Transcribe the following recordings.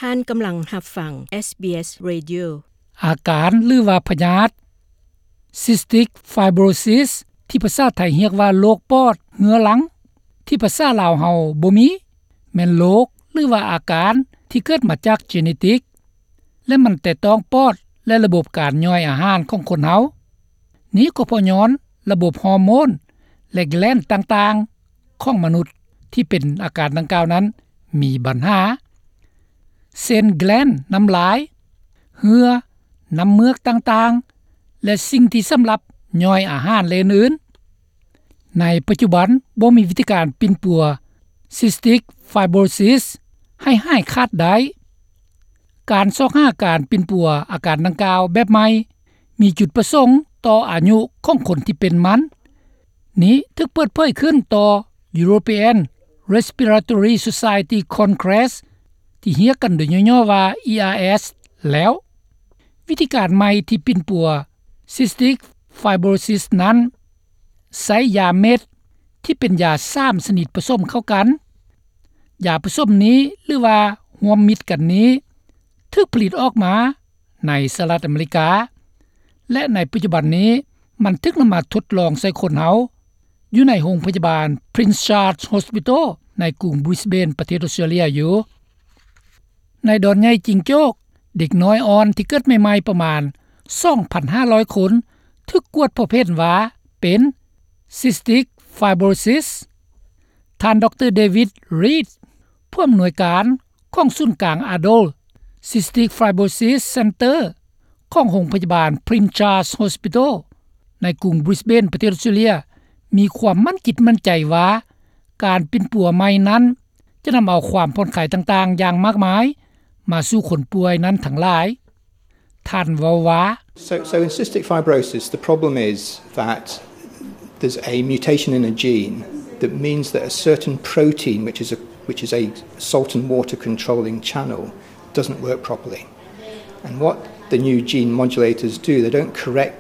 ທ່ານກຳລັງຮັບຟັງ SBS Radio. ອາການ ຫຼືວ່າພະຍາດ Cystic Fibrosis ທີ່ພາສາໄທຮຽກວ່າໂລກປອດເຮືອລັງ ທີ່ພາສາລາວເຮົາບໍ່ມີ ແມ່ນໂລກ ຫຼືວ່າອາການທີ່ເກີດມາຈາກເຈເນຕິກ ແລະ ມັນແຕະຕ້ອງປອດ ແລະ ລະບົບການຍ່ອຍອາຫານຂອງຄົນເຮົາ. ນີ້ກໍເພາະຍ້ອນລະບົບຮໍໂມນ ແລະ ແກລນຕ່າງໆຂອງມະນຸດທີ່ເປັນອາການດັ່ງກ່າວນັ້ນມີບັນຫາ ເຊັ່ນ ແກລນນ້ຳລາຍ, ເຫື່ອ, ນ້ຳເມືອກຕ່າງໆ ແລະ ສິ່ງທີ່ສຳລັບຍ່ອຍອາຫານ ແລະ ອື່ນໆ. ໃນປັດຈຸບັນບໍ່ມີວິທີການປິ່ນປົວ Cystic Fibrosis ໃຫ້ຫາຍຂາດໄດ້. ການຊອກຫາການປິ່ນປົວອາການດັ່ງກ່າວແບບໃໝ່ ມີຈຸດປະສົງຕໍ່ອາຍຸຂອງຄົນທີ່ເປັນມັນ. ນີ້ຖືກເປີດເຜີຍຂຶ້ນຕໍ່ European Respiratory Society Congress ທີ່ຮຽກກັນໂດຍຫຍໍ້ໆວ່າ E R S ແລ້ວ. ວິທີການໃໝ່ທີ່ປິ່ນປົວ Cystic Fibrosis ນັ້ນ ໃຊ້ຢາເມັດທີ່ເປັນຢາສາມຊະນິດປະສົມເຂົ້າກັນ. ຢາປະສົມນີ້ ຫຼືວ່າຮ່ວມມິດກັນນີ້ ຖືກຜະລິດອອກມາໃນສະຫະລັດອາເມລິກາ ແລະ ໃນປັດຈຸບັນນີ້ ມັນຖືກນຳມາທົດລອງໃສ່ຄົນເຮົາ ຢູ່ໃນໂຮງພະຍາບານ Prince Charles Hospital ໃນກຸງ Brisbane ປະເທດອອສເຕຣເລຍຢູ່. ໃນດອນໃຫຍ່ຈິງໂຈ້ກ ເດັກນ້ອຍອ່ອນທີ່ເກີດໃໝ່ໆປະມານ ສອງພັນຫ້າຮ້ອຍຄົນ ຖືກກວດພົບເຫັນວ່າເປັນ Cystic Fibrosis. ທ່ານ ດຣ. David Reed ຜູ້ອຳນວຍການຂອງສູນກາງ Adult Cystic Fibrosis Center ຂອງໂຮງພະຍາບານ Prince Charles Hospital ໃນກຸງ Brisbane ປະເທດອອສເຕຣເລຍ ມີຄວາມໝັ້ນຈິດໝັ້ນໃຈວ່າ ການປິ່ນປົວໃໝ່ນັ້ນ ຈະນຳເອົາຄວາມຜ່ອນຄາຍຕ່າງໆຢ່າງມາກມາຍ ມາສູ່ຄົນປ່ວຍນັ້ນທັງຫຼາຍ. ທ່ານເວົ້າວ່າ So, so in cystic fibrosis, the problem is that there's a mutation in a gene that means that a certain protein, which is a, which is a salt and water controlling channel, doesn't work properly. And what the new gene modulators do, they don't correct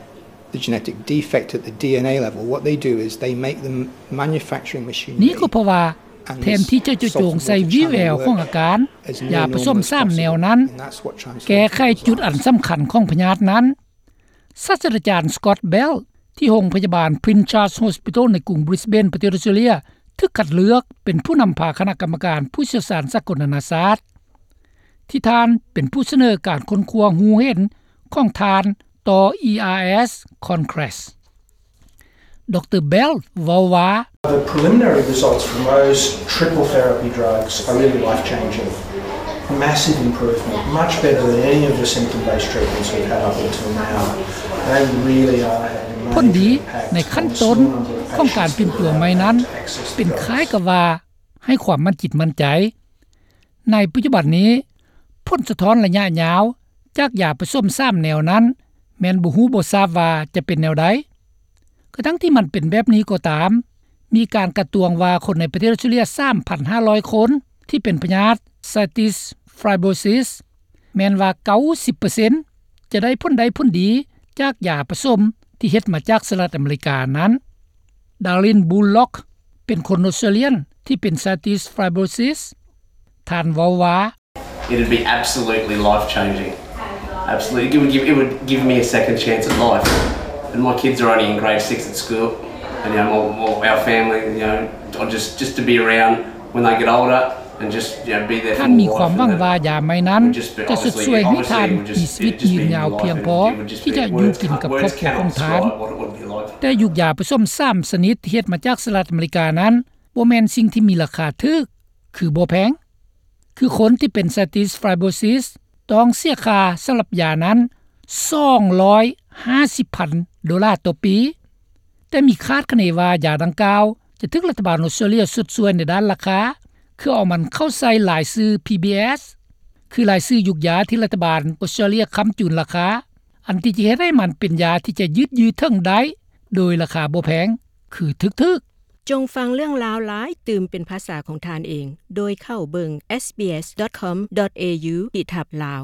the genetic defect at the D N A level. What they do is they make the manufacturing machinery ນີ້ກໍເພາະວ່າ ແທນທີ່ຈະເຈາະຈົງໃສ່ວີແວວຂອງອາການ ຢາປະສົມສາມແນວນັ້ນ ແກ້ໄຂຈຸດອັນສຳຄັນຂອງພະຍາດນັ້ນ. ສາດສະດາຈານ Scott Bell ທີ່ໂຮງພະຍາບານ Prince Charles Hospital ໃນກຸງ Brisbane ປະເທດອອສເຕຣເລຍ ຖືກຄັດເລືອກເປັນຜູ້ນຳພາຄະນະກຳມະການຜູ້ຊ່ຽວຊານສາກົນນານາຊາດ ທີ່ທ່ານເປັນຜູ້ສະເໜີການຄົ້ນຄວ້າຮູ້ເຫັນຂອງທ່ານຕໍ່ E R S Congress. ດຣ. Bell ເວົ້າວ່າ The preliminary results from those triple therapy drugs are really life-changing. Massive improvement, much better than any of the symptom-based treatments we've had up until now. They really are having a major impact on the small number of patients who have access to drugs. ຜົນດີໃນຂັ້ນຕົ້ນຂອງການປິ່ນປົວໃໝ່ນັ້ນ ເປັນຄ້າຍກັບວ່າໃຫ້ຄວາມໝັ້ນຈິດໝັ້ນໃຈ. ໃນປັດຈຸບັນນີ້ ຜົນສະທ້ອນໄລຍະຍາວຈາກຢາປະສົມສາມແນວນັ້ນ ແມ່ນບໍ່ຮູ້ບໍ່ຊາບວ່າຈະເປັນແນວໃດ. ກະທັ່ງທີ່ມັນເປັນແບບນີ້ກໍຕາມ, ມີການການຕວງວ່າຄົນໃນປະເທດອອສເຕຣເລຍ ສາມພັນຫ້າຮ້ອຍຄົນທີ່ເປັນພະຍາດ Cystic Fibrosis ແມ່ນວ່າ ເກົ້າສິບເປີເຊັນ ຈະໄດ້ຜົນໄດ້ຜົນດີຈາກຢາປະສົມທີ່ເຮັດມາຈາກສະຫະລັດອາເມລິການັ້ນ. Darlene Bullock ເປັນຄົນອອສເຕຣເລຍນທີ່ເປັນ Cystic Fibrosis. ທ່ານເວົ້າວ່າ It'd be absolutely life-changing. Absolutely. It would give, it would give me a second chance at life. And my kids are only in grade six at school. And, you know, my, my, our family, you know, or just, just to be around when they get older and just, you know, be there for them. ທ່ານມີຄວາມຫວັງວ່າຢາໃໝ່ນັ້ນຈະຊົດຊ່ວຍໃຫ້ທ່ານມີຊີວິດຍືນຍາວພຽງພໍທີ່ຈະຢູ່ກິນກັບຄອບຄົວຂອງທ່ານ. ແຕ່ຢູ່ຢາປະສົມສາມຊະນິດທີ່ເຮັດມາຈາກສະຫະລັດອາເມລິການັ້ນ ບໍ່ແມ່ນສິ່ງທີ່ມີລາຄາຖືກ ຄືບໍ່ແພງ. ຄືຄົນທີ່ເປັນ Cystic Fibrosis ຕ້ອງເສຍຄ່າສຳລັບຢານັ້ນ ສອງຮ້ອຍຫ້າສິບພັນໂດລາຕໍ່ປີ, ແຕ່ມີຄາດຄະເນວ່າຢາດັ່ງກ່າວຈະຖືກລັດຖະບານອອສເຕຣເລຍຊົດຊ່ວຍໃນດ້ານລາຄາ, ຄືເອົາມັນເຂົ້າໃສ່ລາຍຊື່ PBS ຄືລາຍຊື່ຢູກຢາທີ່ລັດຖະບານອອສເຕຣເລຍຄ້ຳຈູນລາຄາ, ອັນທີ່ຈະເຮັດໃຫ້ມັນເປັນຢາທີ່ຈະຍືດຢູ່ເຖິງໄດ້ໂດຍລາຄາບໍ່ແພງ ຄືຖືກໆ. ຈົ່ງຟັງເລື່ອງລາວຫຼາຍຕື່ມເປັນພາສາຂອງທ່ານເອງ ໂດຍເຂົ້າເບິ່ງ SBS dot com dot au ຂີດທັບ Lao.